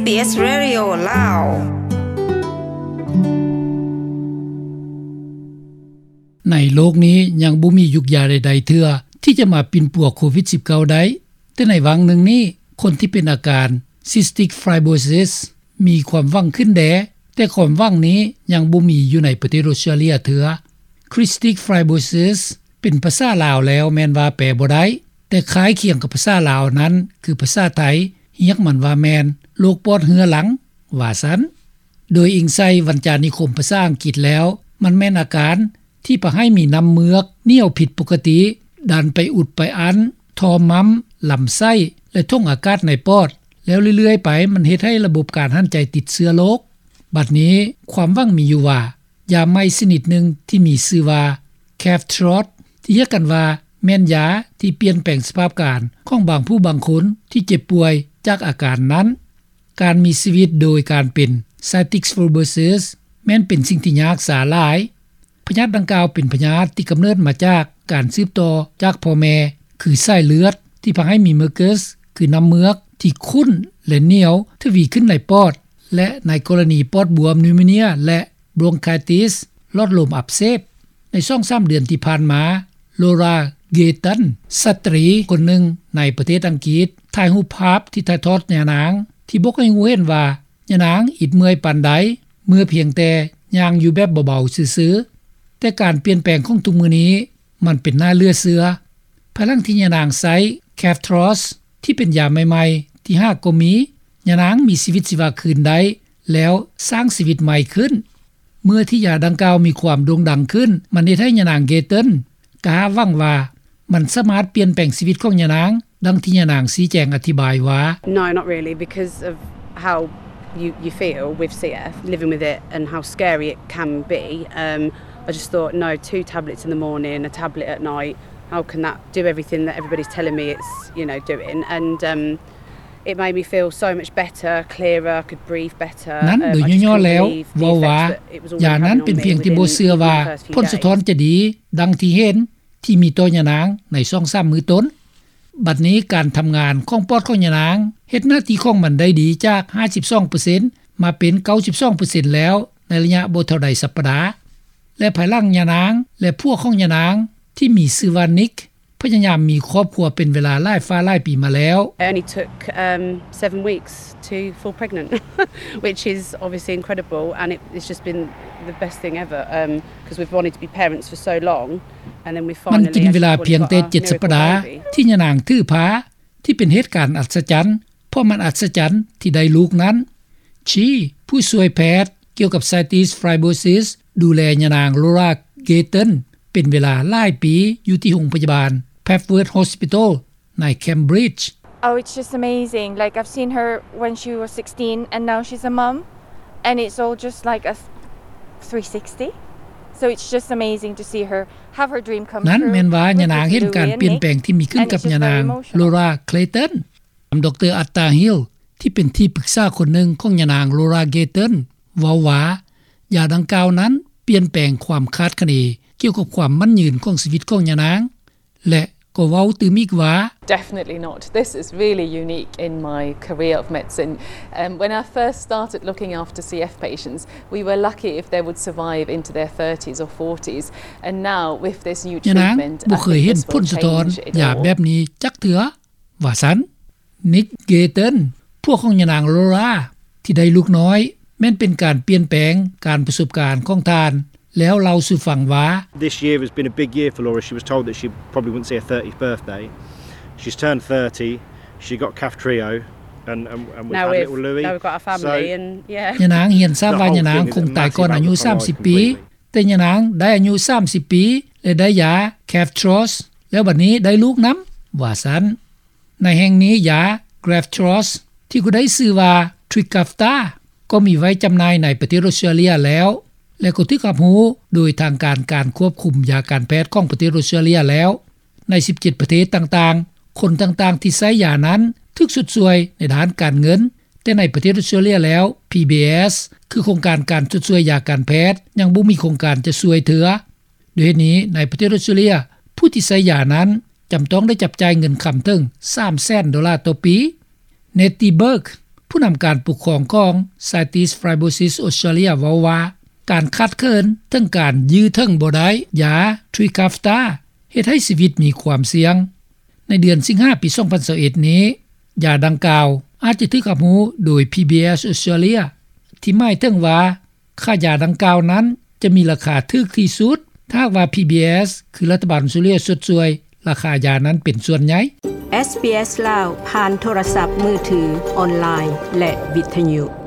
SBS Radio ລາວ. ໃນໂລກນີ້ຍັງບໍ່ມີຢູກຢາໃດໆເທື່ອ ທີ່ຈະມາປິ່ນປົວໂຄວິດ-19 ໄດ້, ແຕ່ໃນຫວ່າງໜຶ່ງນີ້ ຄົນທີ່ເປັນອາການ Cystic Fibrosis ມີຄວາມຫວັງຂຶ້ນແດ່, ແຕ່ຄວາມຫວັງນີ້ຍັງບໍ່ມີຢູ່ໃນປະເທດອົດສະຕຣາເລຍເທື່ອ. Cystic Fibrosis ເປັນພາສາລາວແລ້ວແມ່ນວ່າແປບໍ່ໄດ້, ແຕ່ຄ້າຍຄຽງກັບພາສາລາວນັ້ນຄືພາສາໄທ, ຮຽກມັນວ່າແມ່ນໂລກປອດເຮື້ອລັງ ວ່າຊັ້ນ. ໂດຍອີງໃສ່ວັນຈານິຄົມພາສາອັງກິດແລ້ວ, ມັນແມ່ນອາການທີ່ພາໃຫ້ມີນ້ຳເມືອກໜຽວຜິດປົກກະຕິ ດັນໄປອຸດໄປອັ້ນ ທໍ່ໝ້ຳ, ລຳໄສ້ ແລະ ຖົງອາກາດໃນປອດ, ແລ້ວເລື້ອຍໆໄປມັນເຮັດໃຫ້ລະບົບການຫັນໃຈຕິດເຊື້ອໂລກ. ບັດນີ້ຄວາມຫວັງມີຢູ່ວ່າ ຢາໃໝ່ຊະນິດໜຶ່ງທີ່ມີຊື່ວ່າ Kaftros ທີ່ຮຽກກັນວ່າແມ່ນຢາທີ່ປ່ຽນແປງສະພາບການຂອງບາງຜູ້ບາງຄົນທີ່ເຈັບປ່ວຍຈາກອາການນັ້ນ. ການມີຊີວິດໂດຍການເປັນ Cystic Fibrosis ແມ່ນເປັນສິ່ງທີ່ຍາກຊາຫຼາຍ. ພະຍາດດັ່ງກ່າວເປັນພະຍາດທີ່ກຳເນີດມາຈາກການສືບຕໍ່ຈາກພໍ່ແມ່ ຄືສາຍເລືອດ ທີ່ພາໃຫ້ມີ mucus ຄືນ້ຳເມືອກທີ່ຂຸ້ນ ແລະ ໜຽວທະວີຂຶ້ນໃນປອດ ແລະ ໃນກໍລະນີປອດບວມ pneumonia ແລະ bronchitis ຫຼອດລົມອັກເສບ. ໃນສອງສາມເດືອນທີ່ຜ່ານມາ Laura Gayton ສະຕຣີຄົນໜຶ່ງໃນປະເທດອັງກິດ ຖ່າຍຮູບພາບທີ່ຖ່າຍທອດຍານາງ ທີ່ບອກໃຫ້ຮູ້ເຫັນວ່າ ຍານາງອິດເມື່ອຍປານໃດ ເມື່ອພຽງແຕ່ຍ່າງຢູ່ແບບເບົາໆຊື່ໆ. ແຕ່ການປ່ຽນແປງຂອງທຸກມື້ນີ້ ມັນເປັນໜ້າເຫຼືອເຊື່ອ. ພາຍຫຼັງທີ່ຍານາງໃຊ້ Kaftros ທີ່ເປັນຢາໃໝ່ໆທີ່ຫາກໍມີ, ຍານາງມີຊີວິດຊີວາຄືນໄດ້ ແລ້ວສ້າງຊີວິດໃໝ່ຂຶ້ນ. ເມື່ອທີ່ຢາດັ່ງກ່າວມີຄວາມໂດ່ງດັງຂຶ້ນ, ມັນເຮັດໃຫ້ຍານາງ Gayton ກະຫາຫວັງວ່າ ມັນສາມາດປ່ຽນແປງຊີວິດຂອງຍານາງ, ດັ່ງທີ່ຍານາງຊີ້ແຈງອະທິບາຍວ່າ. No, not really, because of how you, you feel with C F, living with it and how scary it can be. Um, I just thought, no, two tablets in the morning, a tablet at night, how can that do everything that everybody's telling me it's, you know, doing? And, um, it made me feel so much better, clearer, I could breathe better. ນັ້ນໂດຍຫຍໍ້ໆແລ້ວເວົ້າວ່າ ຢານັ້ນເປັນພຽງທີ່ບໍ່ເຊື່ອວ່າຜົນສະທ້ອນຈະດີ ດັ່ງທີ່ເຫັນທີ່ມີຕໍ່ຍານາງໃນສອງສາມມື້ຕົ້ນ. ບັດນີ້ການທຳງານຂອງປອດຂອງຍານາງເຮັດໜ້າທີ່ຂອງມັນໄດ້ດີຈາກຫ້າສິບສອງເປີເຊັນ ມາເປັນເກົ້າສິບສອງເປີເຊັນແລ້ວ ໃນໄລຍະບໍ່ເທົ່າໃດສັບປະດາ. ແລະ ພາຍຫຼັງຍານາງ ແລະ ຜົວຂອງຍານາງທີ່ມີຊື່ວ່າ Nick ພະຍາຍາມມີຄອບຄົວເປັນເວລາຫຼາຍຟ້າຫຼາຍປີມາແລ້ວ. It only took, um, seven weeks to fall pregnant, which is obviously incredible, and it, it's just been the best thing ever, um, 'cause we've wanted to be parents for so long, and then we finally, ມັນກິນເວລາພຽງແຕ່ເຈັດສັບປະດາທີ່ຍານາງຖືພາ ທີ່ເປັນເຫດການອັດສະຈັນ, ເພາະມັນອັດສະຈັນທີ່ໄດ້ລູກນັ້ນ. ຊີ ຜູ້ຊ່ວຍແພດກ່ຽວກັບ Cystic Fibrosis ດູແລຍານາງ Laura Gayton ເປັນເວລາຫຼາຍປີຢູ່ທີ່ໂຮງພະຍາບານ Papworth Hospital ໃນ Cambridge. Oh, it's just amazing. Like, I've seen her when she was sixteen, and now she's a mum, and it's all just like a three sixty. So it's just amazing to see her have her dream come true. ນັ້ນແມ່ນວ່າຍານາງເຫັນການປ່ຽນແປງທີ່ມີຂຶ້ນກັບຍານາງ Laura Gayton. ດຣ. Atta Hill ທີ່ເປັນທີ່ປຶກສາຄົນໜຶ່ງຂອງຍານາງ Laura Gayton ເວົ້າວ່າ ຢາດັ່ງກ່າວນັ້ນປ່ຽນແປງຄວາມຄາດຄະເນກ່ຽວກັບຄວາມໝັ້ນຍືນຂອງຊີວິດຂອງຍານາງ ແລະ ກໍເວົ້າຕື່ມອີກວ່າ. Definitely not. This is really unique in my career of medicine. Um, when I first started looking after C F patients, we were lucky if they would survive into their thirties or forties. And now, with this new treatment, I think this will change it all. ຍານາງບໍ່ເຄີຍເຫັນຜົນສະທ້ອນຢາແບບນີ້ຈັກເທື່ອ ວ່າຊັ້ນ. Nick Gayton ຜົວຂອງຍານາງ Laura ທີ່ໄດ້ລູກນ້ອຍ ແມ່ນເປັນການປ່ຽນແປງການປະສົບການຂອງທ່ານ ແລ້ວເລົ່າສູ່ຟັງວ່າ. This year has been a big year for Laura. She was told that she probably wouldn't see her thirtieth birthday. She's turned thirty. She got Kaftrio, and, and, and we've had little Louis. Now we've, now we've got a family, so and, yeah. ຍານາງຮຽນຊາບວ່າຍານາງຄົງຕາຍກ່ອນອາຍຸສາມສິບປີ, ແຕ່ຍານາງໄດ້ອາຍຸສາມສິບປີ ແລະ ໄດ້ຢາ Kaftros ແລ້ວບັດນີ້ໄດ້ລູກນຳ ວ່າຊັ້ນ. ໃນແຫ່ງນີ້ ຢາ Kaftros ທີ່ກໍໄດ້ຊື່ວ່າ Trikafta ກໍມີໄວ້ຈຳໜ່າຍໃນປະເທດອົດສະຕຣາເລຍແລ້ວ ແລະ ກໍຖືກຮັບຮູ້ໂດຍທາງການການຄວບຄຸມຢາການແພດຂອງປະເທດອົດສະຕຣາເລຍແລ້ວ. ໃນສິບເຈັດປະເທດຕ່າງໆ, ຄົນຕ່າງໆທີ່ໃຊ້ຢານັ້ນຖືກຊົດຊ່ວຍໃນດ້ານການເງິນ, ແຕ່ໃນປະເທດອົດສະຕຣາເລຍແລ້ວ ພີບີເອສ ຄືໂຄງການການຊົດຊ່ວຍຢາການແພດ ຍັງບໍ່ມີໂຄງການຈະຊ່ວຍເທື່ອ. ດ້ວຍເຫດນີ້ ໃນປະເທດອົດສະຕຣາເລຍ ຜູ້ທີ່ໃຊ້ຢານັ້ນຈຳຕ້ອງໄດ້ຈັບຈ່າຍເງິນຄຳເຖິງສາມແສນໂດລາຕໍ່ປີ. Nettie Burke ເພ ຜູ້ນຳການປົກຄອງຂອງ Cystic Fibrosis Australia ເວົ້າວ່າ ການຂາດເຂີນເຖິງການຢື້ເຖິງບໍ່ໄດ້ ຢາ Trikafta ເຮັດໃຫ້ຊີວິດມີຄວາມສ່ຽງ. ໃນເດືອນສິງຫາ ປີ 2021 ນີ້ ຢາດັ່ງກ່າວອາດຈະຖືກຮັບຮູ້ໂດຍ PBS Australia ທີ່ໝາຍເຖິງວ່າ ຄ່າຢາດັ່ງກ່າວນັ້ນຈະມີລາຄາຖືກທີ່ສຸດ ຖ້າຫາກວ່າ PBS ຄືລັດຖະບານ Australia ຊົດຊ່ວຍລາຄາຢານັ້ນເປັນສ່ວນໃຫຍ່. ເອສບີເອສລາວ ຜ່ານໂທລະສັບມືຖື, ອອນລາຍ ແລະ ວິທຍຸ.